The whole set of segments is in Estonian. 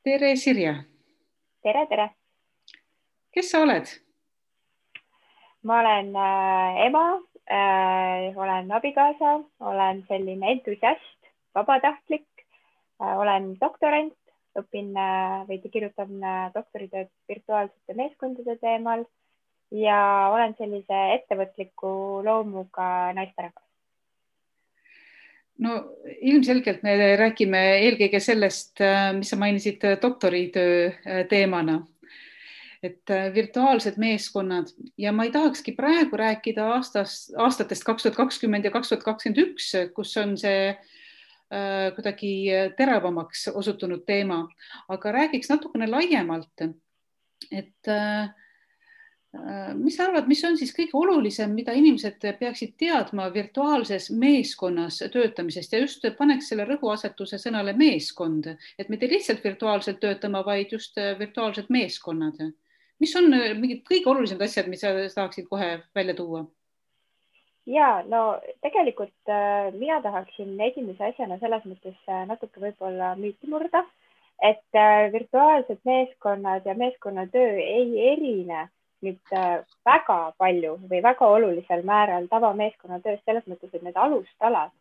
Tere, Sirje. Tere, tere. Kes sa oled? Ma olen ema, olen abikaasa, olen selline entusiast, vabatahtlik, olen doktorant, õpin või kirjutan doktoritööd virtuaalsete meeskondade teemal ja olen sellise ettevõtliku loomuga naisterahvas. No ilmselgelt me räägime eelkõige sellest, mis sa mainisid doktoritöö teemana, et virtuaalsed meeskonnad ja ma ei tahakski praegu rääkida aastatest 2020 ja 2021, kus on see kuidagi teravamaks osutunud teema, aga räägiks natukene laiemalt, et mis sa arvad, mis on siis kõige olulisem, mida inimesed peaksid teadma virtuaalses meeskonnas töötamisest ja just paneks selle rõhuasetuse sõnale meeskond, et mitte lihtsalt virtuaalselt töötama, vaid just virtuaalsed meeskonnad. Mis on mingid kõige olulisemad asjad, mis sa tahaksid kohe välja tuua? Ja, no tegelikult mina tahaksin esimese asjana selles mõttes natuke võib-olla müüti murda, et virtuaalsed meeskonnad ja meeskonnatöö ei erine nüüd väga palju või väga olulisel määral tavameeskonnatööst selles mõttes, et need alustalad,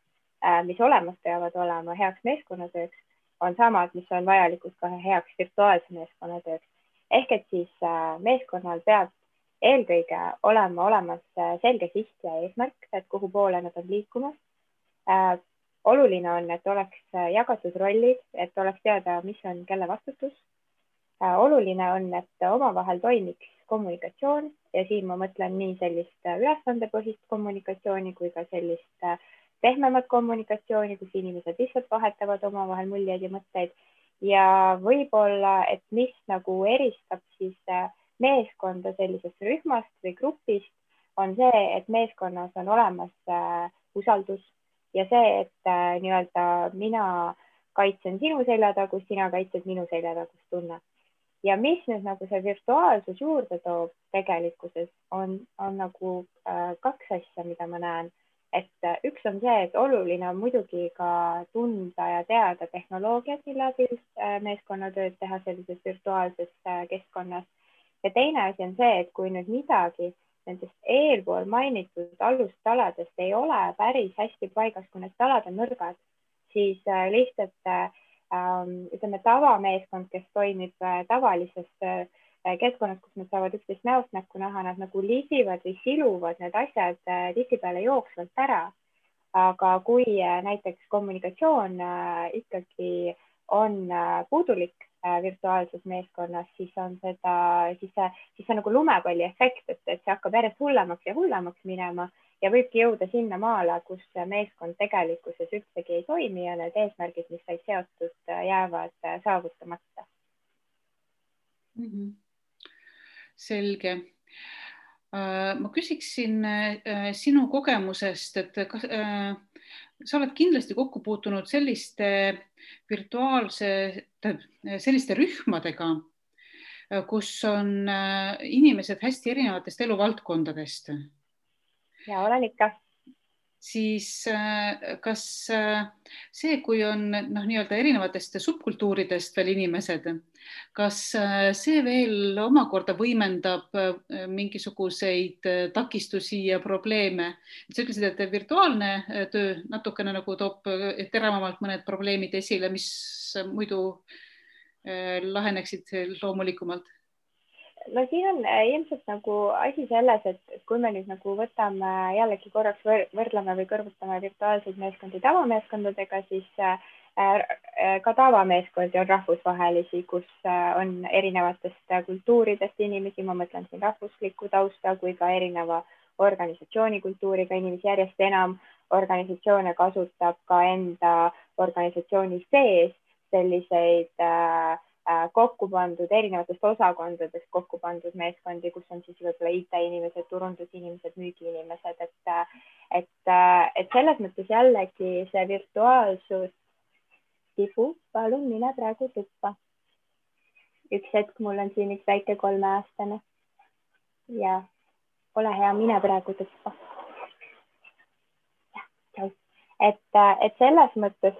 mis olemas peavad olema heaks meeskonnatööks, on samad, mis on vajalikud ka heaks virtuaalse meeskonnatööks. Ehk et siis meeskonnal peab eelkõige olema olemas selge siht ja eesmärk, et kuhu poole nad on liikumas. Oluline on, et oleks jagatud rollid, et oleks teada, mis on kelle vastutus. Oluline on, et omavahel toimiks kommunikatsioon ja siin ma mõtlen nii sellist ülesandepõhist kommunikatsiooni kui ka sellist pehmemat kommunikatsiooni, kus inimesed lihtsalt vahetavad omavahel muljeid ja mõtteid. Ja võib-olla, et mis nagu eristab siis meeskonda sellisest rühmast või grupist, on see, et meeskonnas on olemas usaldus ja see, et nii-öelda mina kaitsen sinu seljatagust, sina kaitsed minu seljatagust tunne. Ja mis nüüd nagu see virtuaalsus juurde toob tegelikkuses on nagu kaks asja, mida ma näen. Et üks on see, et oluline on muidugi ka tunda ja teada tehnoloogiat, mille abil meeskonnatööd teha sellises virtuaalses keskkonnas. Ja teine asi on see, et kui nüüd midagi nendest eelpool mainitud alustaladest ei ole päris hästi paigas, kui need talad on nõrgad, siis lihtsalt ütleme tavameeskond, kes toimib tavalises keskkonnas, kus nad saavad üksteist näost näkku näha, nad nagu lisivad või siluvad need asjad tihtipeale jooksvalt ära. Aga kui näiteks kommunikatsioon ikkagi on puudulik virtuaalses meeskonnas, siis on see nagu lumepalli efekt, et see hakkab järjest hullemaks ja hullemaks minema ja võibki jõuda sinna maale, kus meeskond tegelikkuses üldsegi ei toimi ja need eesmärgid, mis said seotud, jäävad saavutamata. Selge. Ma küsiksin sinu kogemusest, et sa oled kindlasti kokku puutunud selliste selliste rühmadega, kus on inimesed hästi erinevatest eluvaldkondadest. Ja olen ikka. Siis kas see, kui on nii-öelda erinevatest subkultuuridest veel inimesed, kas see veel omakorda võimendab mingisuguseid takistusi ja probleeme? Sa ütlesid, et virtuaalne töö natukene nagu toob teravamalt mõned probleemid esile, mis muidu laheneksid loomulikumalt. No siin on ilmselt nagu asi selles, et kui me nüüd nagu võtame jällegi korraks võrdleme või kõrvutame virtuaalseid meeskondi tavameeskondadega, siis ka tavameeskondi on rahvusvahelisi, kus on erinevatest kultuuridest inimesi, ma mõtlen siin rahvuslikku tausta kui ka erineva organisatsioonikultuuriga inimesi, järjest enam organisatsioone kasutab ka enda organisatsiooni sees selliseid kokku pandud erinevatest osakondadest kokku pandud meeskondi, kus on siis võib-olla IT-inimesed, turundusinimesed, müügiinimesed, et selles mõttes jällegi see virtuaalsus tibu, palun mine praegu tuppa. Üks hetk, mul on siin üks väike 3-aastane ja ole hea, mine praegu tuppa. Et selles mõttes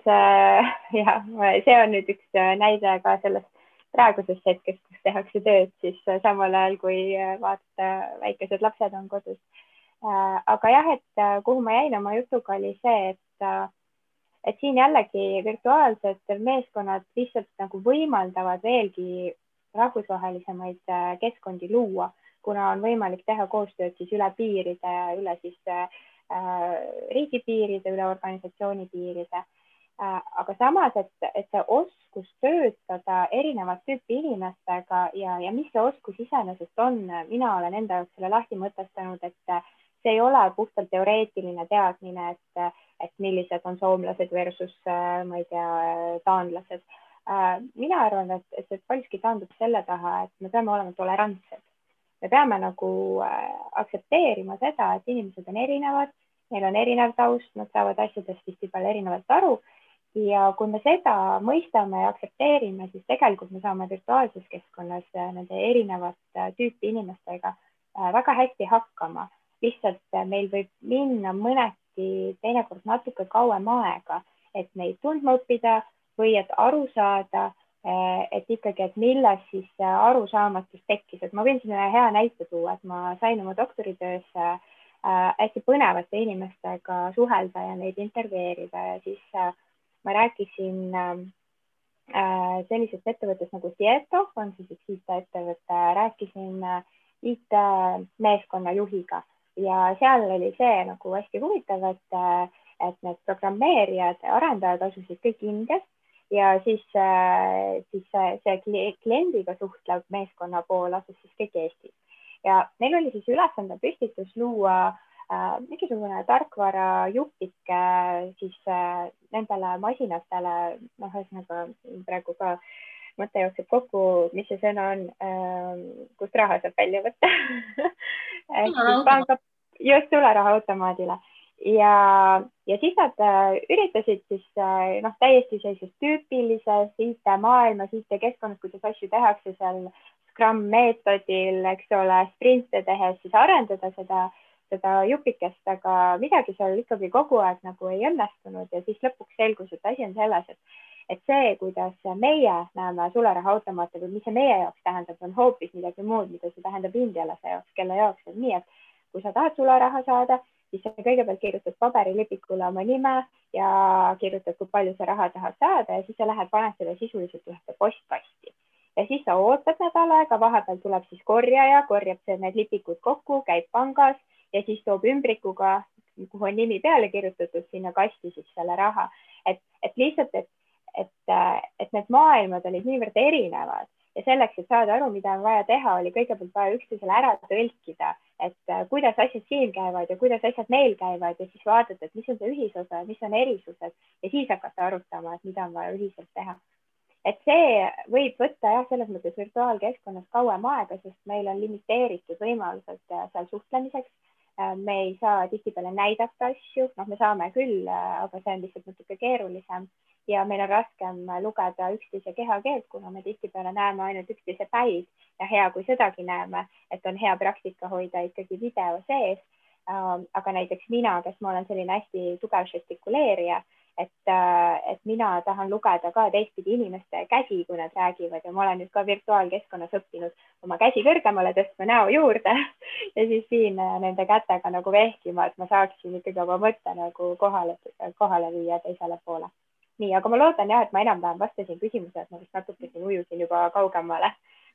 ja see on nüüd üks näide ka sellest praegusest hetkest, kus tehakse tööd, siis samal ajal, kui vaata, väikesed lapsed on kodus. aga jah, et kuhu ma jäin oma jutuga, oli see, et siin jällegi virtuaalsed meeskonnad lihtsalt nagu võimaldavad veelgi rahvusvahelisemaid keskkondi luua, kuna on võimalik teha koostööd siis üle piiride, üle siis riigipiiride, üle organisatsiooni piiride. aga samas, et see oskus töötada erinevat tüüpi inimestega ja mis see oskus iseenesest on, mina olen enda jaoks selle lahti mõtestanud, et see ei ole puhtalt teoreetiline teadmine, et millised on soomlased versus, ma ei tea, taanlased. mina arvan, et see paljuski taandub selle taha, et me peame olema tolerantsed. Me peame nagu aktsepteerima seda, et inimesed on erinevad, neil on erinev taust, nad saavad asjadest tihtipeale erinevalt aru. Ja kui me seda mõistame ja aktsepteerime, siis tegelikult me saame virtuaalses keskkonnas nende erinevat tüüpi inimestega väga hästi hakkama. Lihtsalt meil võib minna mõneti teinekord natuke kauem aega, et neid tundma õppida või et aru saada, et ikkagi, et milles siis arusaamatus tekkis. Et ma võin siin ühe hea näite tuua, et ma sain oma doktoritöös hästi põnevate inimestega suhelda ja neid intervjueerida ja siis ma rääkisin sellisest ettevõttest nagu Tieto, on siis üks IT-ettevõte, rääkisin IT-meeskonna juhiga ja seal oli see nagu hästi huvitav, et need programmeerijad, arendajad asusid kõik Indias ja siis see kliendiga suhtlev meeskonna pool asus siis kõik Eestis. Ja neil oli siis ülesande püstitus luua mingisugune tarkvara jupike siis nendele masinatele, ühesõnaga praegu ka mõte jookseb kokku, mis see sõna on, kust raha saab välja võtta. Just sularahaautomaadile. Ja siis nad üritasid siis täiesti sellises tüüpilises IT-maailmas, IT-keskkonnas, kuidas asju tehakse seal Scrum meetodil, eks ole, sprinte tehes siis arendada seda jupikest, aga midagi seal ikkagi kogu aeg nagu ei õnnestunud ja siis lõpuks selgus, et asi on selles, et see, kuidas meie näeme sularahaautomaate või mis see meie jaoks tähendab, on hoopis midagi muud, mida see tähendab indialase jaoks, kelle jaoks on nii, et kui sa tahad sularaha saada, siis sa kõigepealt kirjutad paberilipikule oma nime ja kirjutad, kui palju sa raha tahad saada ja siis sa lähed, paned selle sisuliselt ühte postkasti. Ja siis sa ootad nädal aega, vahepeal tuleb siis korjaja, korjab need lipikud kokku, käib pangas ja siis toob ümbrikuga, kuhu on nimi peale kirjutatud, sinna kasti siis selle raha. Et lihtsalt, et need maailmad olid niivõrd erinevad ja selleks, et saada aru, mida on vaja teha, oli kõigepealt vaja üksteisele ära tõlkida, et kuidas asjad siin käivad ja kuidas asjad neil käivad ja siis vaadata, et mis on see ühisosa, mis on erisused ja siis hakata arutama, et mida on vaja ühiselt teha. Et see võib võtta jah, selles mõttes virtuaalkeskkonnas kauem aega, sest meil on limiteeritud võimalused seal suhtlemiseks. Me ei saa tihtipeale näidata asju, me saame küll, aga see on lihtsalt natuke keerulisem ja meil on raskem lugeda üksteise kehakeelt, kuna me tihtipeale näeme ainult üksteise päid ja hea, kui sedagi näeme, et on hea praktika hoida ikkagi video sees. Aga näiteks mina, kes ma olen selline hästi tugev žestikuleerija, et mina tahan lugeda ka teistpidi inimeste käsi, kui nad räägivad ja ma olen nüüd ka virtuaalkeskkonnas õppinud oma käsi kõrgemale tõstma näo juurde ja siis siin nende kätega nagu vehkima, et ma saaksin ikkagi oma mõtte nagu kohale viia teisele poole. Nii, aga ma loodan jah, et ma enam-vähem vastasin küsimuse, et ma vist natuke siin ujusin juba kaugemale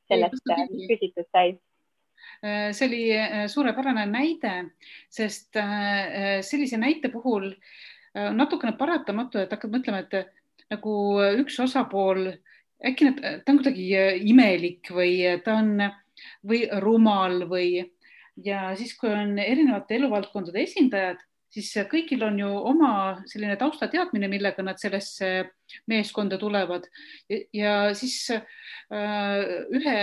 sellest, mis küsitud sai. See oli suurepärane näide, sest sellise näite puhul natukene paratamatu, et hakkad mõtlema, et nagu üks osapool, äkki ta on kuidagi imelik või ta on või rumal ja siis, kui on erinevate eluvaldkondade esindajad, siis kõigil on ju oma selline taustateadmine, millega nad sellesse meeskonda tulevad ja siis ühe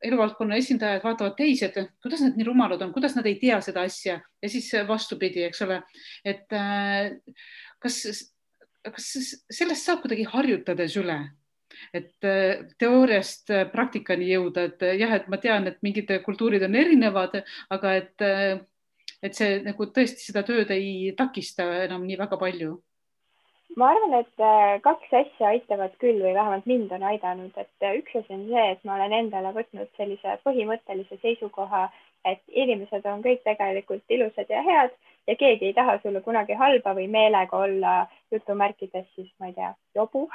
eluvaldkonna esindajad vaatavad teised, kuidas nad nii rumalad on, kuidas nad ei tea seda asja ja siis vastupidi, eks ole, et kas sellest saab kuidagi harjutades üle, et teooriast praktikani jõuda, et jah, et ma tean, et mingid kultuurid on erinevad, aga et see nagu tõesti seda tööd ei takista enam nii väga palju. ma arvan, et kaks asja aitavad küll või vähemalt mind on aidanud, et üks asi on see, et ma olen endale võtnud sellise põhimõttelise seisukoha, et inimesed on kõik tegelikult ilusad ja head ja keegi ei taha sulle kunagi halba või meelega olla jutumärkides siis, ma ei tea, jobu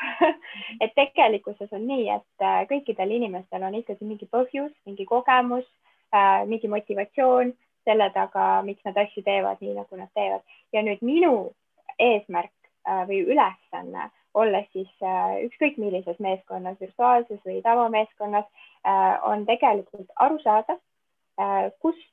et tegelikkuses on nii, et kõikidel inimestel on ikkagi mingi põhjus, mingi kogemus, mingi motivatsioon selle taga, miks nad asju teevad nii, nagu nad teevad. Ja nüüd minu eesmärk või ülesanne, olles siis ükskõik millises meeskonnas, virtuaalses või tavameeskonnas, on tegelikult aru saada, kust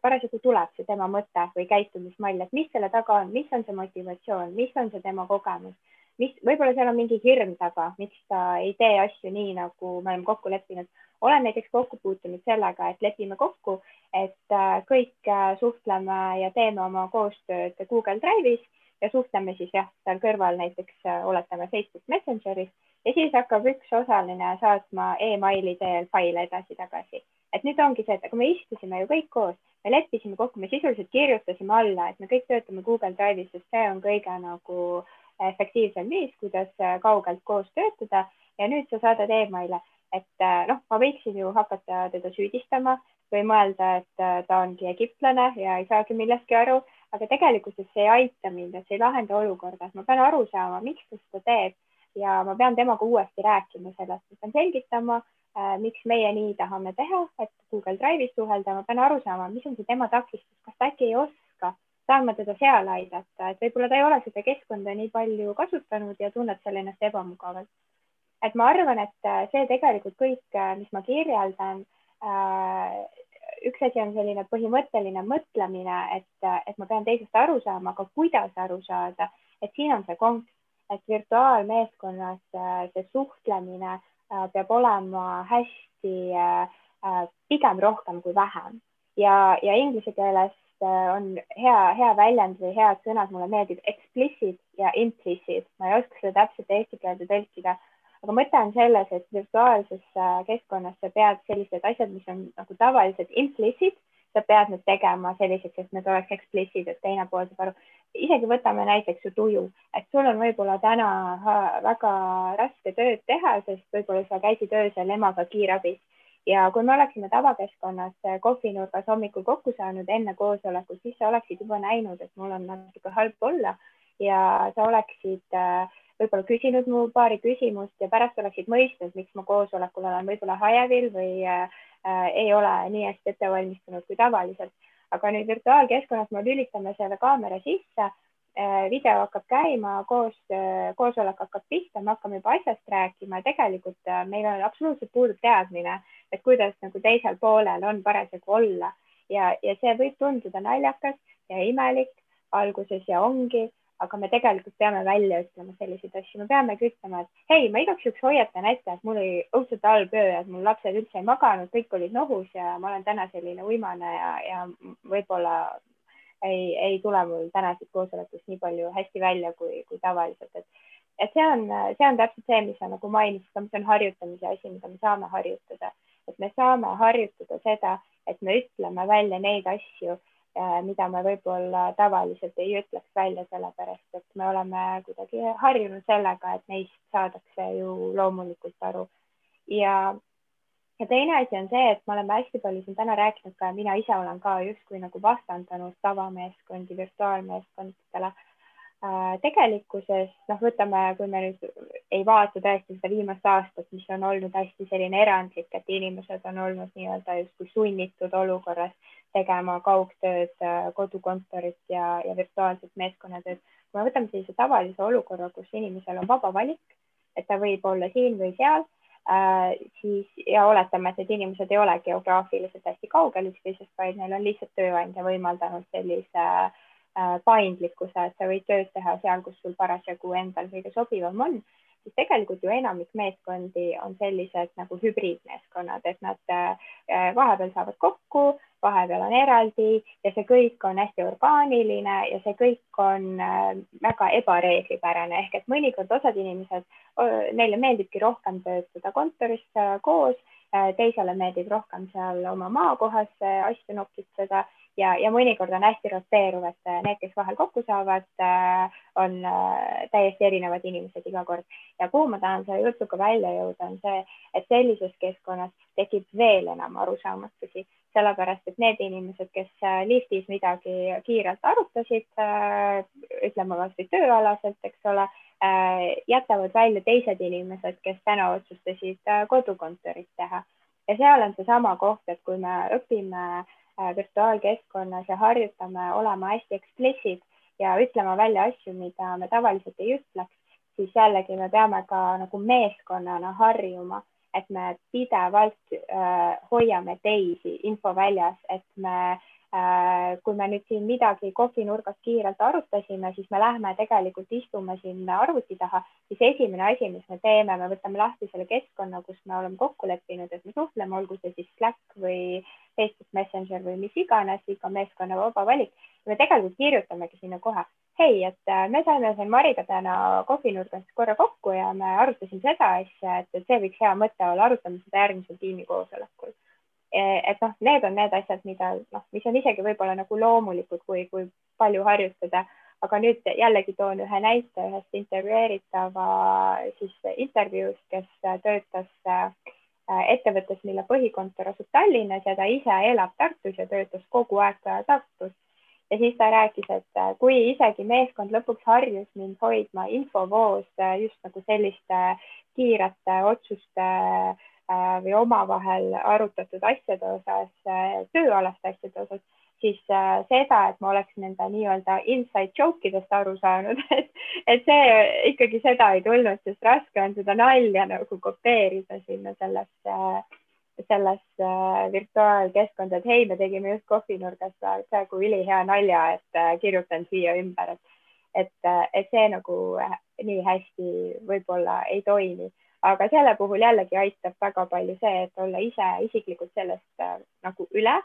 parasjagu tuleb see tema mõte või käitumismall, et mis selle taga on, mis on see motivatsioon, mis on see tema kogemus, mis võib-olla seal on mingi hirm taga, miks ta ei tee asju nii, nagu me oleme kokku leppinud. Olen näiteks kokku puutunud sellega, et lepime kokku, et kõik suhtleme ja teeme oma koostööd Google Drive'is ja suhtleme siis jah, seal kõrval näiteks oletame Facebook Messengeris ja siis hakkab üks osaline saatma emaili teel faile edasi-tagasi. Et nüüd ongi see, et aga me istusime ju kõik koos, me leppisime kokku, me sisuliselt kirjutasime alla, et me kõik töötame Google Drive'is, sest see on kõige nagu efektiivsem viis, kuidas kaugelt koos töötada ja nüüd sa saadad emaile, et noh, ma võiksin ju hakata teda süüdistama või mõelda, et ta ongi egiptlane ja ei saagi millestki aru, aga tegelikult see ei aita mind, et see ei lahenda olukorda, et ma pean aru saama, miks ta seda teeb ja ma pean temaga uuesti rääkima sellest, ma pean selgitama, miks meie nii tahame teha, et Google Drive'is suhelda, ma pean aru saama, mis on see tema takistus, kas ta äkki ei oska, saan ma teda seal aidata, et võib-olla ta ei ole seda keskkonda nii palju kasutanud ja tunneb seal ennast ebamugavalt. Et ma arvan, et see tegelikult kõik, mis ma kirjeldan, üks asi on selline põhimõtteline mõtlemine, et ma pean teisest aru saama, aga kuidas aru saada, et siin on see konks, et virtuaalmeeskonnas see suhtlemine peab olema hästi pigem rohkem kui vähem ja inglise keeles on hea väljend või head sõnad, mulle meeldib explicit ja implicit, ma ei oska seda täpselt eesti keelde tõlkida, aga mõte on selles, et virtuaalses keskkonnas sa pead sellised asjad, mis on nagu tavaliselt implicit, sa pead need tegema selliseks, et need oleks explicit, et teine pool saab aru. Isegi võtame näiteks su tuju, et sul on võib-olla täna väga raske tööd teha, sest võib-olla sa käisid öösel emaga kiirabis ja kui me oleksime tavakeskkonnas kohvinurgas hommikul kokku saanud enne koosolekut, siis sa oleksid juba näinud, et mul on natuke halb olla ja sa oleksid võib-olla küsinud mu paari küsimust ja pärast oleksid mõistnud, miks ma koosolekul olen võib-olla hajevil või ei ole nii hästi ette valmistunud kui tavaliselt. Aga nüüd virtuaalkeskkonnas me lülitame selle kaamera sisse, video hakkab käima, koosolek hakkab pihta, me hakkame juba asjast rääkima ja tegelikult meil on absoluutselt puudub teadmine, et kuidas nagu teisel poolel on parasjagu olla ja see võib tunduda naljakas ja imelik alguses ja ongi, aga me tegelikult peame välja ütlema selliseid asju, me peamegi ütlema, et hei, ma igaks juhuks hoiatan ette, et mul oli õudselt halb öö, et mul lapsed üldse ei maganud, kõik olid nohus ja ma olen täna selline uimane ja võib-olla ei tule mul tänasest koosolekust nii palju hästi välja kui tavaliselt, et see on täpselt see, mis sa nagu mainisid, see on harjutamise asi, mida me saame harjutada, et me saame harjutada seda, et me ütleme välja neid asju, mida me võib-olla tavaliselt ei ütleks välja, sellepärast et me oleme kuidagi harjunud sellega, et neist saadakse ju loomulikult aru. Ja teine asi on see, et me oleme hästi palju siin täna rääkinud ka, mina ise olen ka justkui nagu vastandanud tavameeskondi virtuaalmeeskondadele. Tegelikkuses, võtame, kui me nüüd ei vaata tõesti seda viimast aastat, mis on olnud hästi selline erandlik, et inimesed on olnud nii-öelda justkui sunnitud olukorras tegema kaugtööd, kodukontorit ja virtuaalset meeskonnatööd. Kui me võtame sellise tavalise olukorra, kus inimesel on vaba valik, et ta võib olla siin või seal, siis ja oletame, et need inimesed ei ole geograafiliselt hästi kaugel üksteisest, vaid neil on lihtsalt tööandja võimaldanud sellise paindlikkuse, et sa võid tööd teha seal, kus sul parasjagu endal kõige sobivam on, siis tegelikult ju enamik meeskondi on sellised nagu hübriidmeeskonnad, et nad vahepeal saavad kokku, vahepeal on eraldi ja see kõik on hästi orgaaniline ja see kõik on väga ebareeglipärane, ehk et mõnikord osad inimesed, neile meeldibki rohkem töötada kontoris koos, teisele meeldib rohkem seal oma maakohas asju nokitseda ja mõnikord on hästi roteeruv, et need, kes vahel kokku saavad, on täiesti erinevad inimesed iga kord. Ja kuhu ma tahan selle jutuga välja jõuda, on see, et sellises keskkonnas tekib veel enam arusaamatusi, sellepärast et need inimesed, kes liftis midagi kiirelt arutasid, ütleme kas või tööalaselt, eks ole, jätavad välja teised inimesed, kes täna otsustasid kodukontorit teha. Ja seal on seesama koht, et kui me õpime virtuaalkeskkonnas ja harjutame olema hästi eksplissid ja ütlema välja asju, mida me tavaliselt ei ütleks, siis jällegi me peame ka nagu meeskonnana harjuma, et me pidevalt hoiame teisi info väljas, et kui me nüüd siin midagi kohvinurgas kiirelt arutasime, siis me lähme tegelikult istume siin arvuti taha, siis esimene asi, mis me teeme, me võtame lahti selle keskkonna, kus me oleme kokku leppinud, et me suhtleme, olgu see siis Slack või Facebook Messenger või mis iganes, iga meeskonna vaba valik. Me tegelikult kirjutamegi sinna kohe, hei, et me saime siin Mariga täna kohvinurgas korra kokku ja me arutasime seda asja, et see võiks hea mõte olla, arutame seda järgmisel tiimikoosolekul. Et need on need asjad, mis on isegi võib-olla nagu loomulikud, kui palju harjutada, aga nüüd jällegi toon ühe näite ühest intervjueeritava siis intervjuust, kes töötas ettevõttes, mille põhikontor asub Tallinnas ja ta ise elab Tartus ja töötas kogu aeg Tartus. Ja siis ta rääkis, et kui isegi meeskond lõpuks harjus mind hoidma infovoos just nagu selliste kiirete otsuste või omavahel arutatud asjade osas, tööalaste asjade osas, siis seda, et ma oleks nende nii-öelda inside joke'idest aru saanud, et see ikkagi seda ei tulnud, sest raske on seda nalja nagu kopeerida sinna selles virtuaalkeskkonda, et hei, me tegime just kohvinurgas praegu ülihea nalja, et kirjutan siia ümber, et see nagu nii hästi võib-olla ei toimi. Aga selle puhul jällegi aitab väga palju see, et olla ise isiklikult sellest nagu üle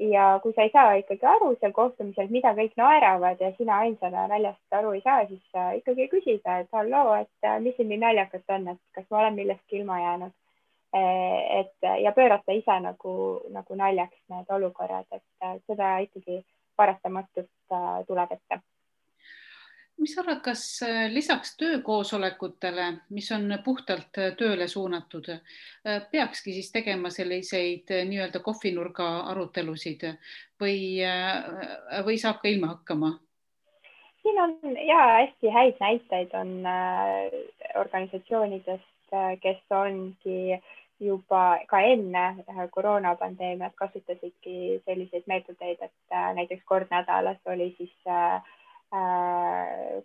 ja kui sa ei saa ikkagi aru seal kohtumisel, mida kõik naeravad ja sina ainsana naljast aru ei saa, siis ikkagi küsida, et halloo, et mis siin nii naljakat on, et kas ma olen millestki ilma jäänud. Ja pöörata ise nagu naljaks need olukorrad, et seda ikkagi paratamatult tuleb ette. Mis arvad, kas lisaks töökoosolekutele, mis on puhtalt tööle suunatud, peakski siis tegema selliseid nii-öelda kohvinurga arutelusid või saab ka ilma hakkama? Siin on hästi häid näiteid on organisatsioonidest, kes ongi juba ka enne koroonapandeemiat kasutasidki selliseid meetodeid, et näiteks kord nädalas oli siis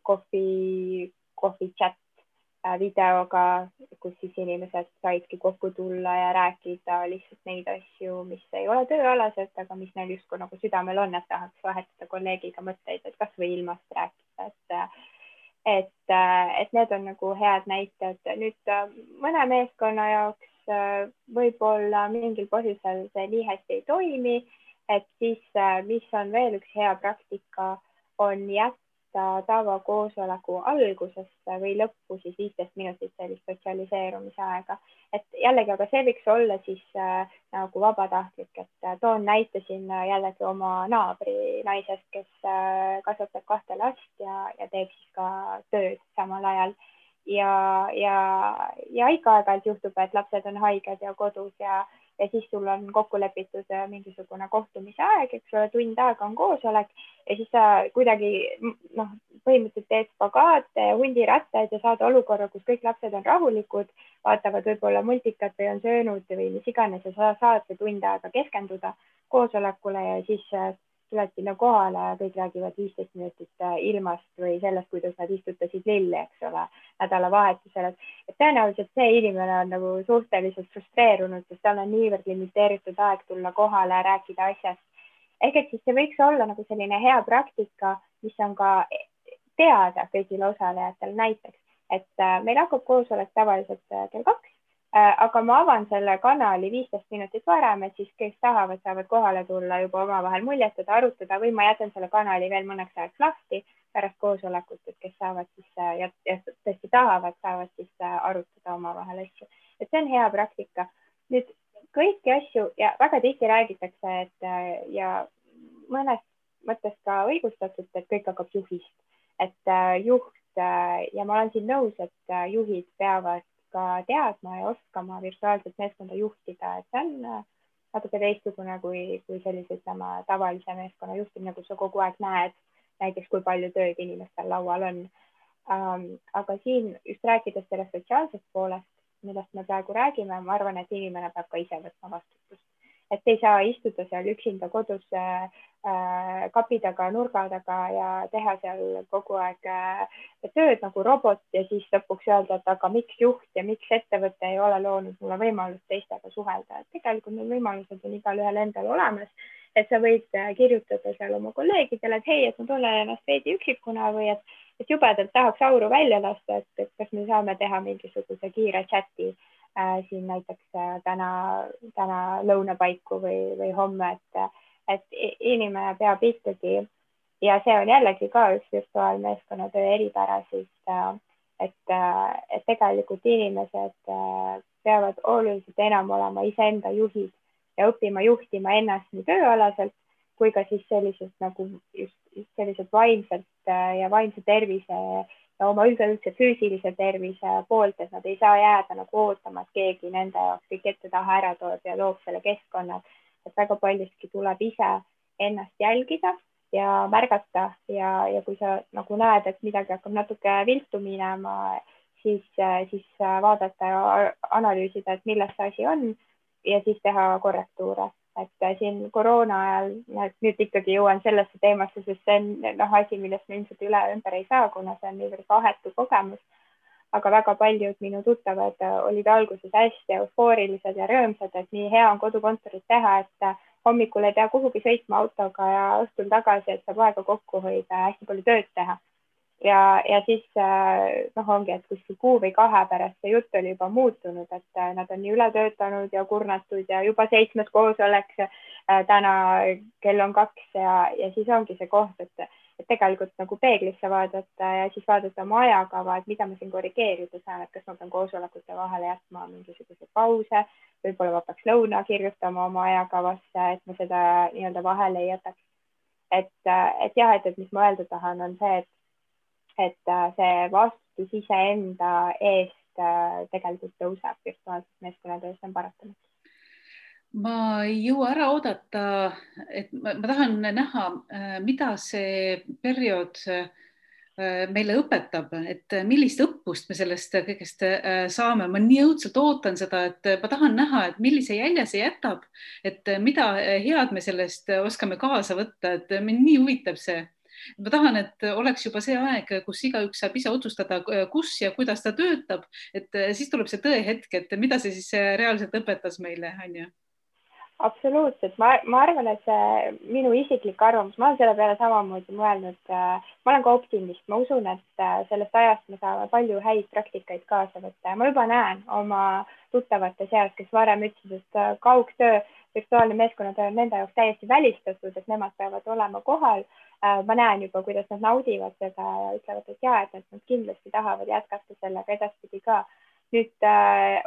kohvi chat videoga, kus siis inimesed saidki kokku tulla ja rääkida lihtsalt neid asju, mis ei ole tööalased, aga mis neil justkui nagu südamel on, et tahaks vahetada kolleegiga mõtteid, et kas või ilmast rääkida, et need on nagu head näited. Nüüd mõne meeskonna jaoks võib-olla mingil põhjusel see nii hästi ei toimi, et siis mis on veel üks hea praktika, on jätta tavakoosoleku algusesse või lõppu siis 15 minutit sellist sotsialiseerumise aega. Et jällegi, aga see võiks olla siis nagu vabatahtlik, et toon näite siin jällegi oma naabri naisest, kes kasvatab 2 last ja teeb siis ka tööd samal ajal. Ja ikka aeg-ajalt juhtub, et lapsed on haiged ja kodus ja siis sul on kokku lepitud mingisugune kohtumise aeg, eks ole, tund aega on koosolek ja siis sa kuidagi põhimõtteliselt teed spagaate ja hundirattaid ja saad olukorra, kus kõik lapsed on rahulikud, vaatavad võib-olla multikat või on söönud või mis iganes ja sa saad see tund aega keskenduda koosolekule ja siis tuled sinna kohale ja kõik räägivad 15 minutit ilmast või sellest, kuidas nad istutasid lilli, eks ole, nädalavahetusel. Et tõenäoliselt see inimene on nagu suhteliselt frustreerunud, sest tal on niivõrd limiteeritud aeg tulla kohale ja rääkida asjast. Ehk et siis see võiks olla nagu selline hea praktika, mis on ka teada kõigile osalejatele näiteks, et meil hakkab koosolek tavaliselt kell 2. Aga ma avan selle kanali 15 minutit varem, et siis kes tahavad, saavad kohale tulla juba omavahel muljetada, arutada või ma jätan selle kanali veel mõneks ajaks lahti pärast koosolekut, et kes saavad siis ja tõesti tahavad, saavad siis arutada omavahel asju. Et see on hea praktika. Nüüd kõiki asju ja väga tihti räägitakse, et ja mõnes mõttes ka õigustatud, et kõik hakkab juhist, et juht ja ma olen siin nõus, et juhid peavad ka teadma ja oskama virtuaalset meeskonda juhtida, et see on natuke teistsugune kui sellise, ütleme, tavalise meeskonna juhtimine, kus sa kogu aeg näed näiteks, kui palju tööd inimestel laual on. Aga siin just rääkides sellest sotsiaalsest poolest, millest me praegu räägime, ma arvan, et inimene peab ka ise võtma vastutust. Et ei saa istuda seal üksinda kodus kapi taga, nurga taga ja teha seal kogu aeg tööd nagu robot ja siis lõpuks öelda, et aga miks juht ja miks ettevõte ei ole loonud mulle võimalust teistega suhelda. Et tegelikult need võimalused on igalühel endal olemas, et sa võid kirjutada seal oma kolleegidele, et hei, et ma tunnen ennast veidi üksikuna või et jubedalt tahaks auru välja lasta, et kas me saame teha mingisuguse kiire chati siin näiteks täna lõuna paiku või homme, et inimene peab ikkagi ja see on jällegi ka üks virtuaalmeeskonna töö eripära, siis et tegelikult inimesed peavad oluliselt enam olema iseenda juhid ja õppima juhtima ennast nii tööalaselt kui ka siis selliselt nagu just selliselt vaimselt ja vaimse tervise ja oma üldse füüsilise tervise poolt, et nad ei saa jääda nagu ootama, et keegi nende jaoks kõik ette taha ära toob ja loob selle keskkonna, et väga paljustki tuleb ise ennast jälgida ja märgata ja kui sa nagu näed, et midagi hakkab natuke viltu minema, siis vaadata ja analüüsida, et milles see asi on ja siis teha korrektuure. Et siin koroona ajal, nüüd ikkagi jõuan sellesse teemasse, sest see on asi, millest me ilmselt üle ümber ei saa, kuna see on niivõrd vahetu kogemus. Aga väga paljud minu tuttavad olid alguses hästi eufoorilised ja rõõmsad, et nii hea on kodukontorit teha, et hommikul ei pea kuhugi sõitma autoga ja õhtul tagasi, et saab aega kokku hoida ja hästi palju tööd teha. Ja siis ongi, et kuskil kuu või 2 pärast see jutt oli juba muutunud, et nad on nii üle töötanud ja kurnatud ja juba 7. koosolek täna kell on 2 ja siis ongi see koht, et tegelikult nagu peeglisse vaadata ja siis vaadata oma ajakava, et mida ma siin korrigeerida saan, et kas ma pean koosolekute vahele jätma mingisuguse pause, võib-olla ma peaks lõuna kirjutama oma ajakavasse, et ma seda nii-öelda vahele ei jätaks. Et jah, et mis ma öelda tahan, on see, et see vastutus iseenda eest tegelikult tõuseb virtuaalses meeskonnatöös, see on paratamatult. Ma ei jõua ära oodata, et ma tahan näha, mida see periood meile õpetab, et millist õppust me sellest kõigest saame. Ma nii õudselt ootan seda, et ma tahan näha, et millise jälje see jätab, et mida head me sellest oskame kaasa võtta, et mind nii huvitab see. Ma tahan, et oleks juba see aeg, kus igaüks saab ise otsustada, kus ja kuidas ta töötab, et siis tuleb see tõehetk, et mida see siis reaalselt õpetas meile, on ju? Absoluutselt, ma arvan, et see minu isiklik arvamus, ma olen selle peale samamoodi mõelnud, ma olen ka optimist, ma usun, et sellest ajast me saame palju häid praktikaid kaasa võtta ja ma juba näen oma tuttavate seas, kes varem ütlesid, et kaugtöö, virtuaalne meeskonnatöö on nende jaoks täiesti välistatud, et nemad peavad olema kohal. Ma näen juba, kuidas nad naudivad seda ja ütlevad, et jaa, et nad kindlasti tahavad jätkata sellega edaspidi ka. Nüüd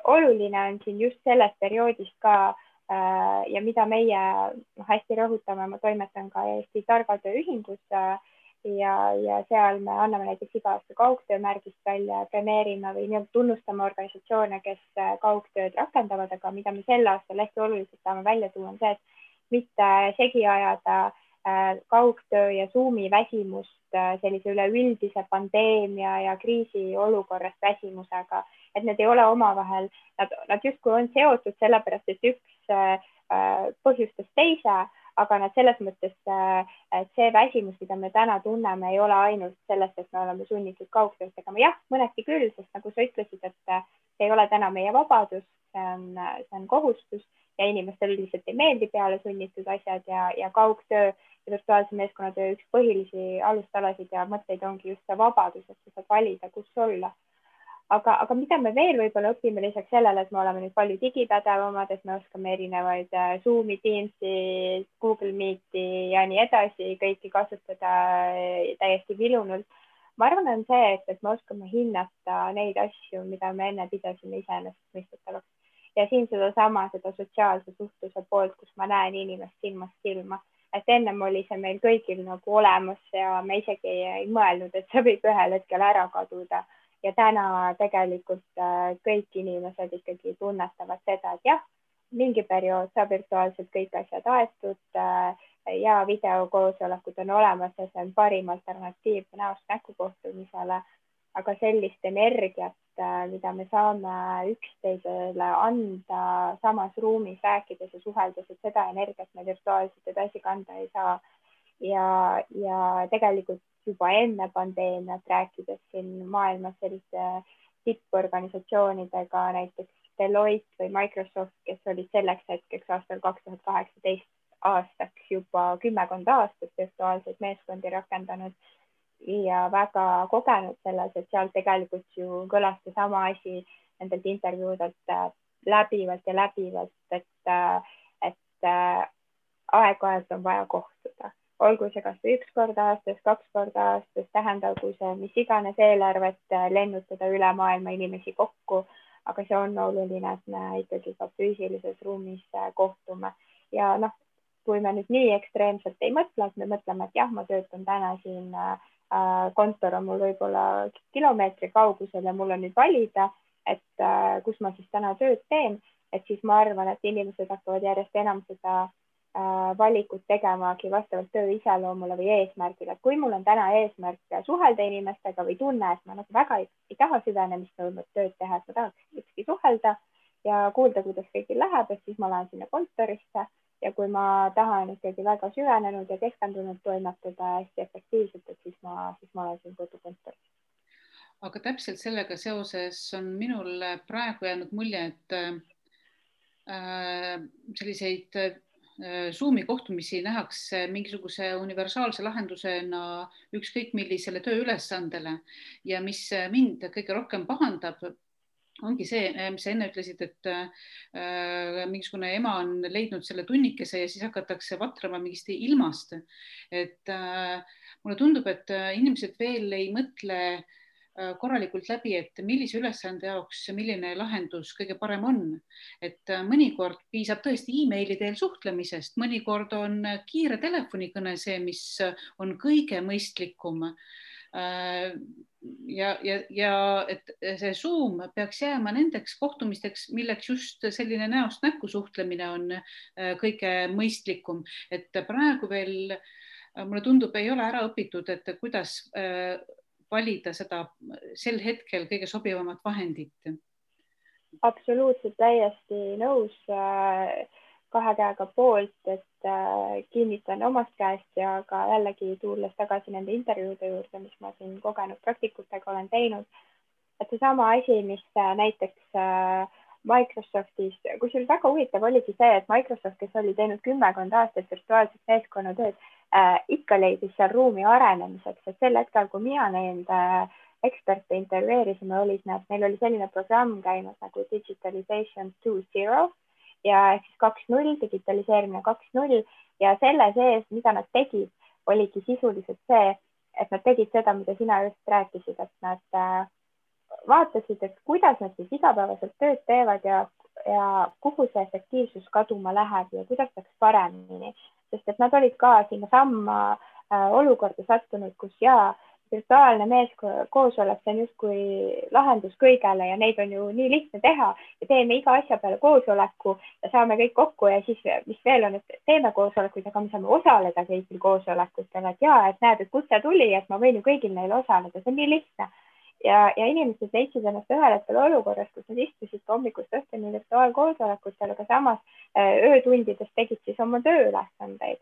oluline on siin just sellest perioodist ka ja mida meie hästi rõhutame, ma toimetan ka Eesti Targatöö Ühingus ja seal me anname näiteks iga aasta kaugtöömärgist välja, premeerime või tunnustame organisatsioone, kes kaugtööd rakendavad, aga mida me sel aastal hästi oluliselt saame välja tuua, on see, et mitte segi ajada kaugtöö ja Zoomi väsimust sellise üleüldise pandeemia ja kriisiolukorrast väsimusega, et need ei ole omavahel, nad justkui on seotud sellepärast, et üks põhjustas teise, aga nad selles mõttes, et see väsimus, mida me täna tunneme, ei ole ainult sellest, et me oleme sunnitud kaugtööd tegema. Jah, mõneti küll, sest nagu sa ütlesid, et see ei ole täna meie vabadus, see on kohustus ja inimestel üldiselt ei meeldi peale sunnitud asjad ja kaugtöö ja virtuaalse meeskonnatöö üks põhilisi alustalasid ja mõtteid ongi just see vabadus, et sa saad valida, kus olla. Aga mida me veel võib-olla õpime lisaks sellele, et me oleme nüüd palju digipädevamad, et me oskame erinevaid Zoomi, Teamsi, Google Meeti ja nii edasi kõiki kasutada täiesti vilunult. Ma arvan, on see, et me oskame hinnata neid asju, mida me enne pidasime iseenesestmõistetavaks. Ja siin seda sotsiaalse suhtluse poolt, kus ma näen inimest silmast silma. et ennem oli see meil kõigil nagu olemas ja me isegi ei mõelnud, et see võib ühel hetkel ära kaduda. Ja täna tegelikult kõik inimesed ikkagi tunnetavad seda, et jah, mingi periood saab virtuaalselt kõik asjad aetud ja videokoosolekud on olemas ja see on parim alternatiiv näost näkku kohtumisele, aga sellist energiat, mida me saame üksteisele anda samas ruumis rääkides ja suheldes, et seda energiat me virtuaalselt edasi kanda ei saa. Ja tegelikult juba enne pandeemiat rääkides siin maailmas selliste tipporganisatsioonidega, näiteks Deloitte või Microsoft, kes olid selleks hetkeks aastal 2018 aastaks juba 10 aastat virtuaalseid meeskondi rakendanud ja väga kogenud selles, et seal tegelikult ju kõlas sama asi nendelt intervjuudelt läbivalt, et aeg-ajalt on vaja kohtuda. Olgu see kas või 1 kord aastas, 2 korda aastas, tähendagu see mis iganes eelarvet lennutada üle maailma inimesi kokku, aga see on oluline, et me ikkagi ka füüsilises ruumis kohtume. Ja noh, kui me nüüd nii ekstreemselt ei mõtle, et me mõtleme, et jah, ma töötan täna siin, kontor on mul võib-olla kilomeetri kaugusel ja mul on nüüd valida, et kus ma siis täna tööd teen, et siis ma arvan, et inimesed hakkavad järjest enam seda valikut tegemagi vastavalt töö iseloomule või eesmärgile. Kui mul on täna eesmärk suhelda inimestega või tunne, et ma nagu väga ei taha süvenemist nõudnud tööd teha, et ma tahaks ükski suhelda ja kuulda, kuidas kõigil läheb, et siis ma lähen sinna kontorisse ja kui ma tahan ikkagi väga süvenenud ja keskendunud toimetada hästi efektiivselt, et siis ma olen siin kodukontoris. Aga täpselt sellega seoses on minul praegu jäänud mulje, et selliseid Zoomi kohtumisi nähakse mingisuguse universaalse lahendusena ükskõik millisele tööülesandele ja mis mind kõige rohkem pahandab, ongi see, mis sa enne ütlesid, et mingisugune ema on leidnud selle tunnikese ja siis hakatakse vatrama mingist ilmast. Et mulle tundub, et inimesed veel ei mõtle korralikult läbi, et millise ülesande jaoks milline lahendus kõige parem on. Et mõnikord piisab tõesti e-maili teel suhtlemisest, mõnikord on kiire telefonikõne see, mis on kõige mõistlikum. Ja et see Zoom peaks jääma nendeks kohtumisteks, milleks just selline näost näkku suhtlemine on kõige mõistlikum. Et praegu veel, mulle tundub, ei ole ära õpitud, et kuidas valida seda sel hetkel kõige sobivamat vahendit. Absoluutselt täiesti nõus, 2 käega poolt, et kinnitan omast käest ja ka jällegi tulles tagasi nende intervjuude juurde, mis ma siin kogenud praktikutega olen teinud, et see sama asi, mis näiteks Microsoftis, kusjuures väga huvitav oligi see, et Microsoft, kes oli teinud 10 aastat virtuaalset meeskonnatööd, ikka leidis seal ruumi arenemiseks, et sel hetkel, kui mina neid eksperte intervjueerisime, neil oli selline programm käimas nagu Digitalization 2.0 ja siis 2.0, digitaliseerimine 2.0 ja selle sees, mida nad tegid, oligi sisuliselt see, et nad tegid seda, mida sina just rääkisid, et nad vaatasid, et kuidas nad siis igapäevaselt tööd teevad ja kuhu see efektiivsus kaduma läheb ja kuidas saaks paremini. Sest et nad olid ka sinna samma olukorda sattunud, kus virtuaalne meeskoosolek, see on justkui lahendus kõigele ja neid on ju nii lihtne teha ja teeme iga asja peale koosoleku ja saame kõik kokku ja siis, mis veel on, et teeme koosolekuid, aga me saame osaleda kõigil koosolekutel, et et näed, et kutse tuli, et ma võin ju kõigil neil osaleda, see on nii lihtne. Ja inimesed leidsid ennast ühel hetkel olukorras, kus nad istusid hommikust õhtuni virtuaalkoosolekutel, aga samas öötundides tegid siis oma tööülesandeid.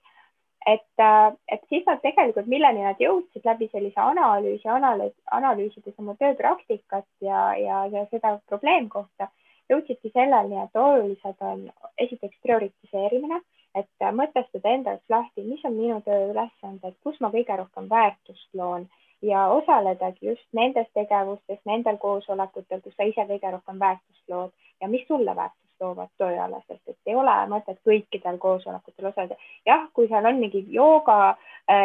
Et siis nad tegelikult, milleni nad jõudsid läbi sellise analüüsides oma tööpraktikat ja seda probleemkohta, jõudsidki selleni, et olulised on esiteks prioritiseerimine, et mõtestada enda jaoks lahti, mis on minu tööülesanded, kus ma kõige rohkem väärtust loon ja osaledagi just nendes tegevustes, nendel koosolekutel, kus sa ise kõige rohkem väärtust lood ja mis sulle väärtust toovad tööalaselt, et ei ole mõtet kõikidel koosolekutel osaleda. Jah, kui seal on mingi jooga,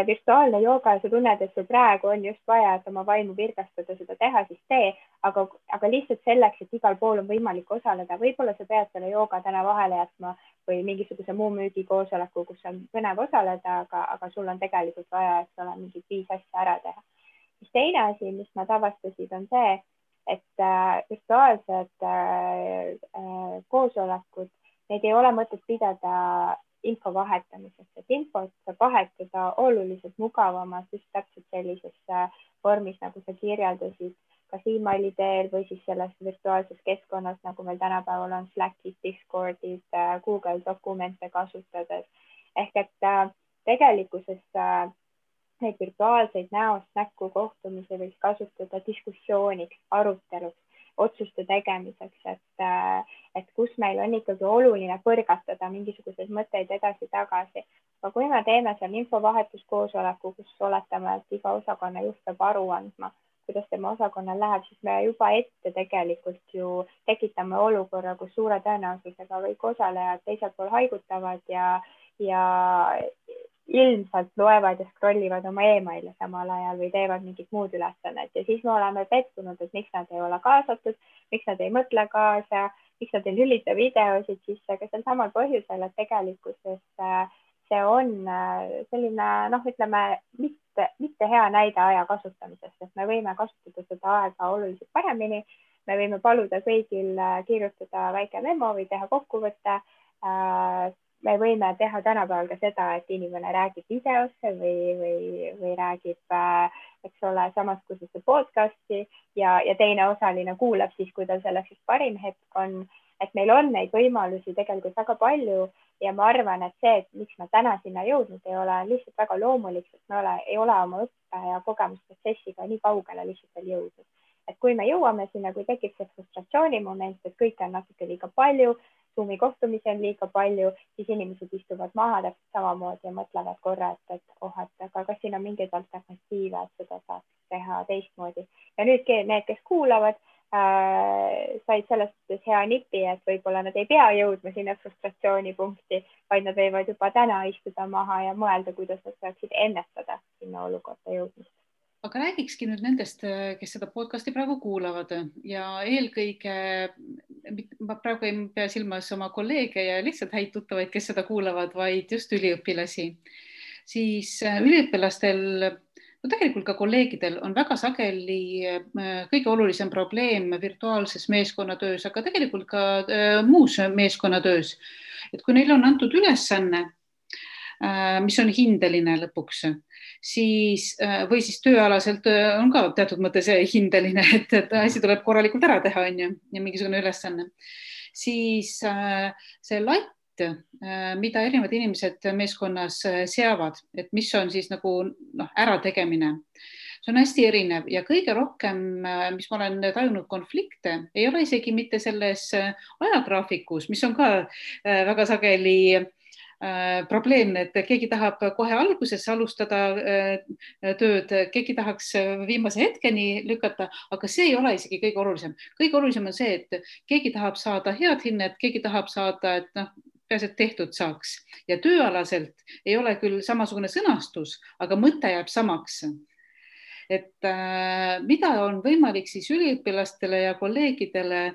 virtuaalne jooga ja sa tunned, et sul praegu on just vaja, et oma vaimu virgastada, seda teha, siis tee, aga lihtsalt selleks, et igal pool on võimalik osaleda, võib-olla sa pead selle jooga täna vahele jätma või mingisuguse muu müügikoosoleku, kus on põnev osaleda, aga sul on tegelikult vaja, et ole mingi 5 asja ära teha. Siis teine asi, mis nad avastasid, on see, et virtuaalsed koosolekud, neid ei ole mõtet pidada info vahetamiseks, et infot saab vahetada oluliselt mugavamalt just täpselt sellises vormis, nagu sa kirjeldasid, kas emaili teel või siis selles virtuaalses keskkonnas, nagu meil tänapäeval on Slackid, Discordid, Google dokumente kasutades. Ehk et tegelikkuses neid virtuaalseid näost näkku kohtumisi võiks kasutada diskussiooniks, aruteluks, otsuste tegemiseks, et kus meil on ikkagi oluline põrgatada mingisuguseid mõtteid edasi-tagasi. Aga kui me teeme seal infovahetuskoosoleku, kus oletame, et iga osakonna juht peab aru andma, kuidas tema osakonnal läheb, siis me juba ette tegelikult ju tekitame olukorra, kus suure tõenäosusega kõik osalejad teisel pool haigutavad ja ilmselt loevad ja scrollivad oma emaile samal ajal või teevad mingit muud ülesannet ja siis me oleme pettunud, et miks nad ei ole kaasatud, miks nad ei mõtle kaasa, miks nad ei lülita videosid sisse, aga sel samal põhjusel, et tegelikkuses see on selline, ütleme, mitte hea näide aja kasutamisest, et me võime kasutada seda aega oluliselt paremini, me võime paluda kõigil kirjutada väike memo või teha kokkuvõtte. Me võime teha tänapäeval ka seda, et inimene räägib videosse või räägib, eks ole, samas kui see podcasti ja teine osaline kuulab siis, kui tal selleks parim hetk on, et meil on neid võimalusi tegelikult väga palju ja ma arvan, et see, et miks me täna sinna jõudnud ei ole, on lihtsalt väga loomulik, et me ei ole oma õppe ja kogemusprotsessiga nii kaugele lihtsalt veel jõudnud. Et kui me jõuame sinna, kui tekib see frustratsiooni moment, et kõike on natuke liiga palju, Zoomi kohtumisi on liiga palju, siis inimesed istuvad maha täpselt samamoodi ja mõtlevad korra, et aga kas siin on mingeid alternatiive, et seda saaks teha teistmoodi. Ja nüüd need, kes kuulavad, said selles mõttes hea nipi, et võib-olla nad ei pea jõudma sinna frustratsioonipunkti, vaid nad võivad juba täna istuda maha ja mõelda, kuidas nad saaksid ennetada sinna olukorda jõudmist. Aga räägikski nüüd nendest, kes seda podcasti praegu kuulavad ja eelkõige, ma praegu ei pea silmas oma kolleege ja lihtsalt häid tuttavaid, kes seda kuulavad, vaid just üliõpilasi. Siis üliõpilastel, tegelikult ka kolleegidel on väga sageli kõige olulisem probleem virtuaalses meeskonnatöös, aga tegelikult ka muus meeskonnatöös. Et kui neil on antud ülesanne, mis on hindeline lõpuks, siis, või siis tööalaselt on ka teatud mõttes hindeline, et asi tuleb korralikult ära teha, on ju, ja mingisugune ülesanne. Siis see latt, mida erinevad inimesed meeskonnas seavad, et mis on siis nagu ärategemine, see on hästi erinev ja kõige rohkem, mis ma olen tajunud konflikte, ei ole isegi mitte selles ajagraafikus, mis on ka väga sageli probleemne, et keegi tahab kohe alguses alustada tööd, keegi tahaks viimase hetkeni lükata, aga see ei ole isegi kõige olulisem. Kõige olulisem on see, et keegi tahab saada head hinnet, keegi tahab saada, et peaasi, et tehtud saaks. Ja tööalaselt ei ole küll samasugune sõnastus, aga mõte jääb samaks. Et mida on võimalik siis üliõpilastele ja kolleegidele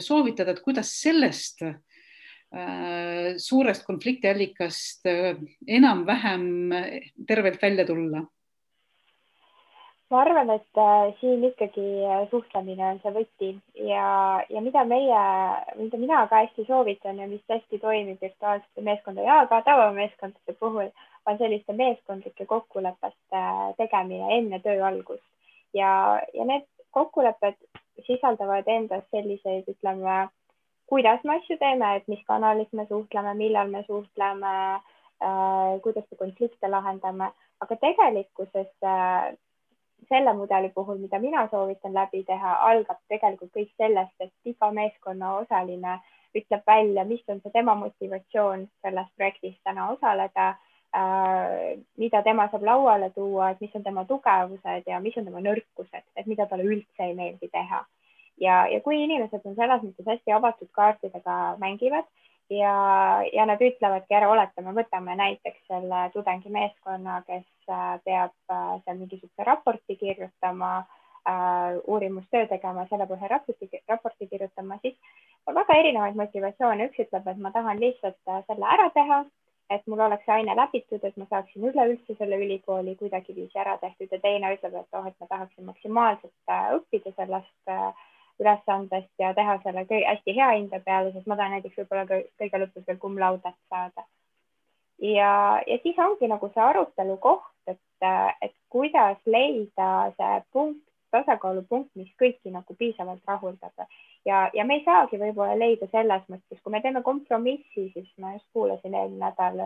soovitada, et kuidas sellest suurest konfliktiallikast enam-vähem tervelt välja tulla? Ma arvan, et siin ikkagi suhtlemine on see võti ja mida mina ka hästi soovitan ja mis hästi toimib virtuaalsete meeskondade ja ka tavameeskondade puhul, on selliste meeskondlike kokkulepete tegemine enne töö algust. Ja need kokkulepped sisaldavad endas selliseid, ütleme, kuidas me asju teeme, et mis kanalis me suhtleme, millal me suhtleme, kuidas me konflikte lahendame, aga tegelikkuses selle mudeli puhul, mida mina soovitan läbi teha, algab tegelikult kõik sellest, et iga meeskonna osaline ütleb välja, mis on see tema motivatsioon selles projektis täna osaleda, mida tema saab lauale tuua, et mis on tema tugevused ja mis on tema nõrkused, et mida talle üldse ei meeldi teha. ja kui inimesed on selles mõttes hästi avatud kaartidega mängivad ja nad ütlevadki ära, oletame, võtame näiteks selle tudengimeeskonna, kes peab seal mingisuguse raporti kirjutama, uurimustöö tegema, selle põhjal raporti kirjutama, siis on väga erinevaid motivatsioone. Üks ütleb, et ma tahan lihtsalt selle ära teha, et mul oleks see aine läbitud, et ma saaksin üleüldse selle ülikooli kuidagiviisi ära tehtud, ja teine ütleb, et et ma tahaksin maksimaalselt õppida sellest ülesandest ja teha selle hästi hea hinde peale, sest ma tahan näiteks võib-olla kõige lõpus veel cum laudet saada. Ja siis ongi nagu see arutelu koht, et kuidas leida see punkt, tasakaalupunkt, mis kõiki nagu piisavalt rahuldab. Ja me ei saagi võib-olla leida selles mõttes, kui me teeme kompromissi, siis ma just kuulasin eelmine nädal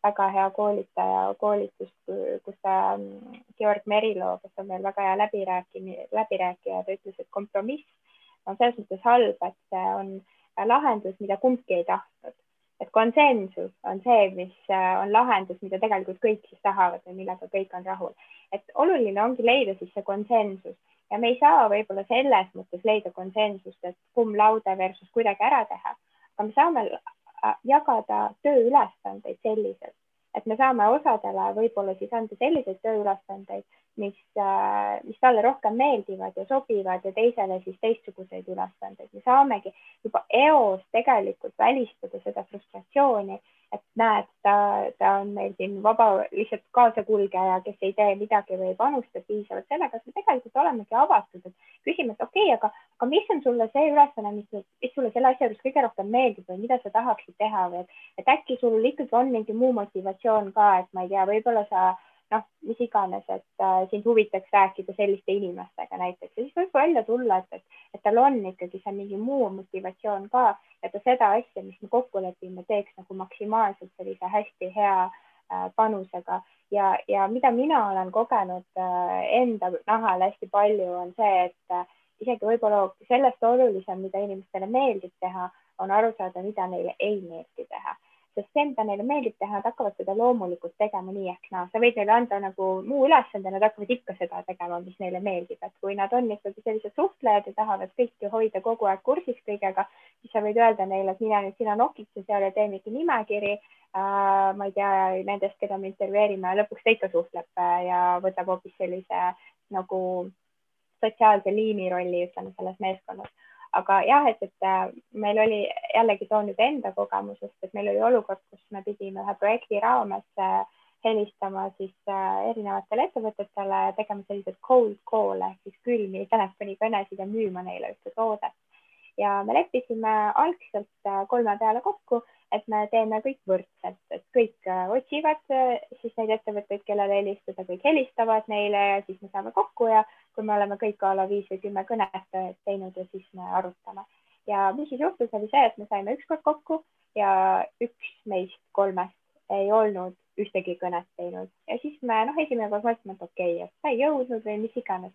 väga hea koolitaja koolitust, kus Georg Merilo, kes on meil väga hea läbirääkija, ta ütles, et kompromiss on selles mõttes halb, et see on lahendus, mida kumbki ei tahtnud. Et konsensus on see, mis on lahendus, mida tegelikult kõik siis tahavad või millega kõik on rahul. Et oluline ongi leida siis see konsensus ja me ei saa võib-olla selles mõttes leida konsensust, et cum laude versus kuidagi ära teha, aga me saame jagada tööülesandeid selliselt, et me saame osadele võib-olla siis anda selliseid tööülesandeid, mis talle rohkem meeldivad ja sobivad ja teisele siis teistsuguseid ülesandeid. Me saamegi juba eos tegelikult välistada seda frustratsiooni, et näed, ta on meil siin vaba lihtsalt kaasakulgeja, kes ei tee midagi või ei panusta piisavalt sellega, et me tegelikult olemegi avatud, et küsime, et okei, aga mis on sulle see ülesanne, mis sulle selle asja juures kõige rohkem meeldib või mida sa tahaksid teha või et äkki sul ikkagi on mingi muu motivatsioon ka, et ma ei tea, võib-olla sa mis iganes, et sind huvitaks rääkida selliste inimestega näiteks ja siis võib välja tulla, et tal on ikkagi see mingi muu motivatsioon ka, et ta seda asja, mis me kokku lepime, teeks nagu maksimaalselt sellise hästi hea panusega ja mida mina olen kogenud enda nahal hästi palju on see, et isegi võib-olla sellest olulisem, mida inimestele meeldib teha, on aru saada, mida neile ei meeldi teha. Sest see, mida neile meeldib teha, nad hakkavad seda loomulikult tegema nii ehk naa. Sa võid neile anda nagu muu ülesande, nad hakkavad ikka seda tegema, mis neile meeldib. Et kui nad on ikkagi sellised suhtlejad ja tahavad kõiki hoida kogu aeg kursis kõigega, siis sa võid öelda neile, et mina nüüd sina nokitse seal ja tee mingi nimekiri, ma ei tea, nendest, keda me intervjueerime, lõpuks ta ikka suhtleb ja võtab hoopis sellise nagu sotsiaalse liini rolli, ütleme, selles meeskonnas. Aga jah, et meil oli jällegi toon nüüd enda kogemusest, et meil oli olukord, kus me pidime ühe projekti raames helistama siis erinevatele ettevõtetele ja tegema sellised cold call'e, siis külmi telefonikõnesid ja müüma neile ühte toodet. Ja me leppisime algselt 3 peale kokku, et me teeme kõik võrdselt, et kõik otsivad siis neid ettevõtteid, kellele helistada, kõik helistavad neile ja siis me saame kokku ja kui me oleme kõik a la 5 või 10 kõnet teinud ja siis me arutame. Ja mis siis juhtus, oli see, et me saime ükskord kokku ja üks meist 3 ei olnud ühtegi kõnet teinud. Ja siis me esimene kord mõtlesime, et okei, et ta ei jõudnud või mis iganes.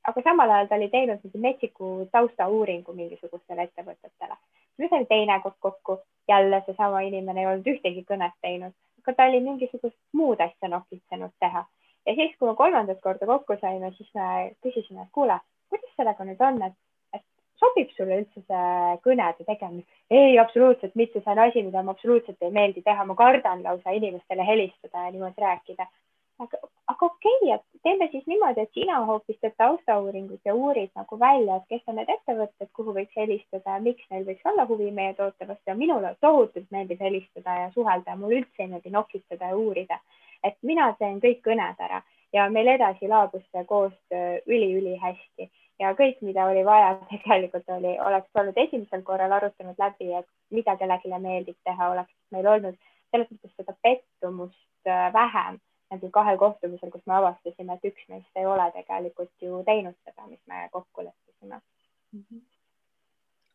Aga samal ajal ta oli teinud metsiku taustauuringu mingisugustele ettevõtetele. Me saime teine kord kokku, jälle seesama inimene ei olnud ühtegi kõnet teinud, aga ta oli mingisugust muud asja nokitsenud teha. Ja siis, kui me 3. korda kokku saime, siis me küsisime, et kuule, kuidas sellega nüüd on, et sobib sulle üldse see kõnede tegemine? Ei, absoluutselt mitte, see on asi, mida ma absoluutselt ei meeldi teha. Ma kardan lausa inimestele helistada ja niimoodi rääkida. Aga okei, et teeme siis niimoodi, et sina hoopis teed taustauuringut ja uurid nagu välja, et kes on need ettevõtted, kuhu võiks helistada ja miks neil võiks olla huvi meie toote vastu. Ja minule tohutult meeldib helistada ja suhelda ja mul üldse ei meeldi nokitseda ja uurida. Et mina teen kõik kõned ära ja meil edasi laabus see koostöö üli hästi ja kõik, mida oli vaja, tegelikult oleks olnud esimesel korral arutanud läbi, et mida kellelegi meeldib teha, oleks meil olnud selles mõttes seda pettumust vähem nagu 2 kohtumisel, kus me avastasime, et üks meist ei ole tegelikult ju teinud seda, mis me kokku leppisime.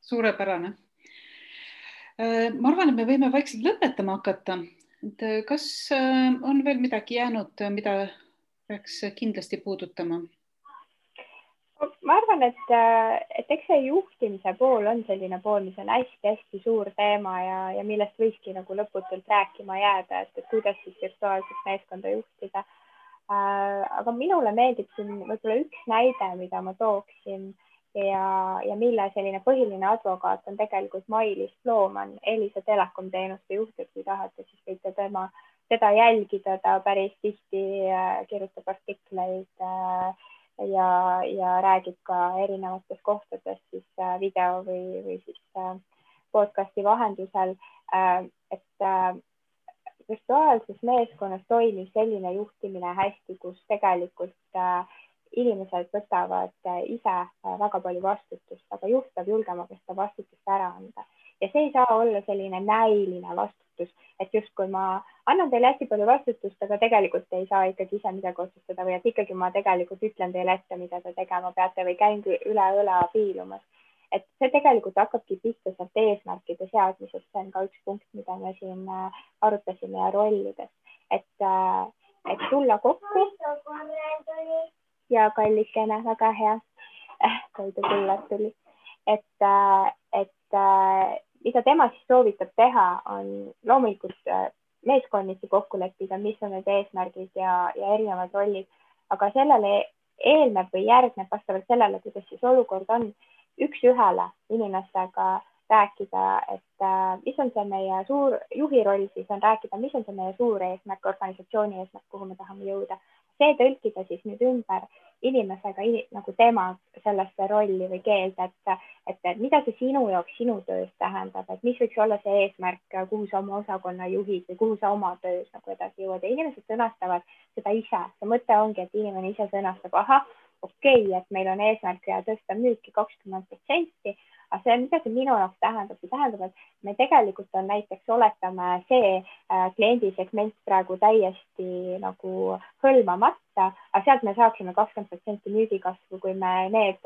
Suurepärane. Ma arvan, et me võime vaikselt lõpetama hakata. Kas on veel midagi jäänud, mida peaks kindlasti puudutama? Ma arvan, et eks see juhtimise pool on selline pool, mis on hästi suur teema ja millest võikski nagu lõputult rääkima jääda, et kuidas siis virtuaalset meeskonda juhtida. Aga minule meeldib siin võib-olla üks näide, mida ma tooksin ja mille selline põhiline advokaat on tegelikult Mailis Plooman, Elisa Telekom teenuste juht, et kui tahate, siis võite teda jälgida, ta päris tihti kirjutab artikleid ja räägib ka erinevates kohtades siis video või siis podcasti vahendusel, et virtuaalses meeskonnas toimib selline juhtimine hästi, kus tegelikult inimesed võtavad ise väga palju vastutust, aga juht peab julgema ka seda vastutust ära anda. Ja see ei saa olla selline näiline vastutus, et justkui ma annan teile hästi palju vastutust, aga tegelikult ei saa ikkagi ise midagi otsustada või et ikkagi ma tegelikult ütlen teile ette, mida te tegema peate või käin üle õla piilumas. Et see tegelikult hakkabki pihta sealt eesmärkide seadmisest, see on ka üks punkt, mida me siin arutasime ja rollides, et tulla kokku ja kallikene, väga hea, toidu kullad tuli, et mida tema siis soovitab teha, on loomulikult meeskonniti kokku leppida, mis on need eesmärgid ja erinevad rollid, aga sellele eelneb või järgneb vastavalt sellele, kuidas siis olukord on, üks-ühele inimestega rääkida, et mis on see meie suur juhi roll, siis on rääkida, mis on see meie suur eesmärk, organisatsiooni eesmärk, kuhu me tahame jõuda. See tõlkida siis nüüd ümber inimesega nagu tema sellesse rolli või keelde, et mida see sinu jaoks sinu töös tähendab, et mis võiks olla see eesmärk, kuhu sa oma osakonna juhid või kuhu sa oma töös nagu edasi jõuad ja inimesed sõnastavad seda ise. See mõte ongi, et inimene ise sõnastab, ahah, okei, et meil on eesmärk ja tõsta müüki 20%, aga see, mida see minu jaoks tähendab, see tähendab, et me tegelikult on näiteks, oletame see kliendisegment praegu täiesti nagu hõlmamata, aga sealt me saaksime 20% müügikasvu, kui me need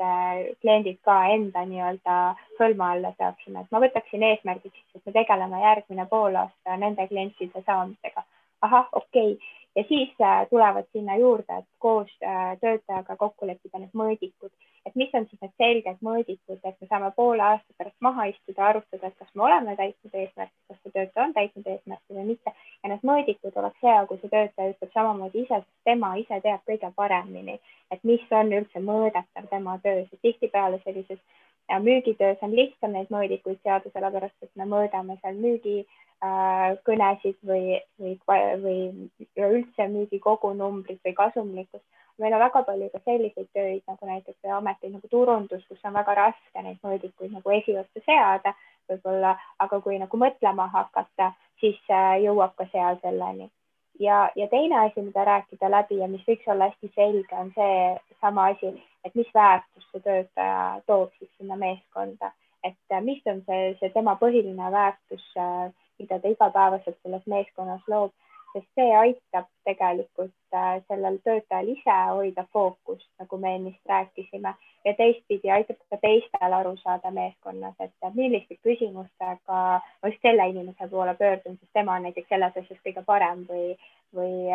kliendid ka enda nii-öelda hõlma alla saaksime. Et ma võtaksin eesmärgiks, et me tegeleme järgmine poolaasta nende klientide saamisega. Ahah, okei. Ja siis tulevad sinna juurde, et koos töötajaga kokku leppida need mõõdikud, et mis on siis need selged mõõdikud, et me saame poole aasta pärast maha istuda, arutada, et kas me oleme täitnud eesmärki, kas see töötaja on täitnud eesmärki või mitte. Ja need mõõdikud oleks hea, kui see töötaja ütleb samamoodi ise, sest tema ise teab kõige paremini, et mis on üldse mõõdetav tema töös. Ja tihtipeale sellises müügitöös on lihtsam neid mõõdikuid seada, sellepärast et me mõõdame seal kõnesid või üldse müügi kogunumbrit või kasumlikkust. Meil on väga palju ka selliseid tööid nagu näiteks ameteid nagu turundus, kus on väga raske neid mõõdikuid nagu esiossa seada võib-olla, aga kui nagu mõtlema hakata, siis jõuab ka seal selleni. Ja teine asi, mida rääkida läbi ja mis võiks olla hästi selge, on see sama asi, et mis väärtus see töötaja toob siis sinna meeskonda, et mis on see tema põhiline väärtus, mida ta igapäevaselt selles meeskonnas loob, sest see aitab tegelikult sellel töötajal ise hoida fookust, nagu me ennist rääkisime, ja teistpidi aitab ka teistel aru saada meeskonnas, et milliste küsimustega ma just selle inimese poole pöördun, sest tema on näiteks selles asjas kõige parem või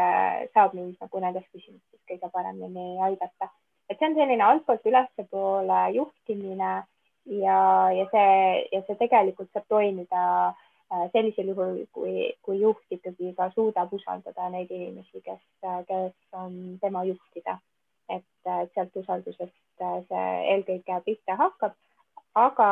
saab mind nagu nendes küsimustes kõige paremini aidata. Et see on selline altpoolt ülespoole juhtimine ja see tegelikult saab toimida sellisel juhul, kui juht ikkagi ka suudab usaldada neid inimesi, kes on tema juhtida. Et sealt usaldusest see eelkõige pihta hakkab, aga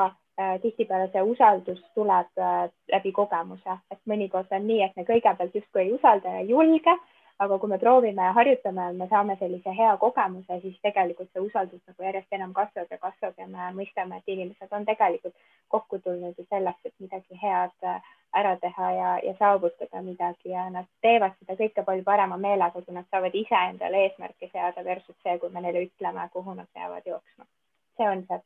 tihtipeale see usaldus tuleb läbi kogemuse. Et mõnikord on nii, et me kõigepealt justkui ei usalda ja julge, aga kui me proovime ja harjutame, me saame sellise hea kogemuse, siis tegelikult see usaldus nagu järjest enam kasvab ja me mõistame, et inimesed on tegelikult kokku tulnud selleks, et midagi head ära teha ja saavutada midagi ja nad teevad seda kõike palju parema meelega, kui nad saavad ise endale eesmärke seada versus see, kui me neile ütleme, kuhu nad peavad jooksma. See on see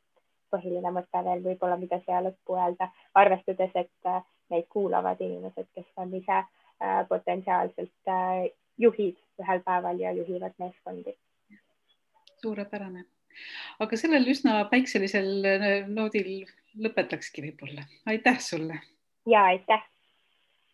põhiline mõte veel võib-olla, mida siia lõppu öelda, arvestades, et neid kuulavad inimesed, kes on ise potentsiaalselt juhid ühel päeval ja juhivad meeskondi. Suurepärane. Aga sellel üsna päikselisel noodil lõpetakski võib-olla. Aitäh sulle! Ja, aitäh!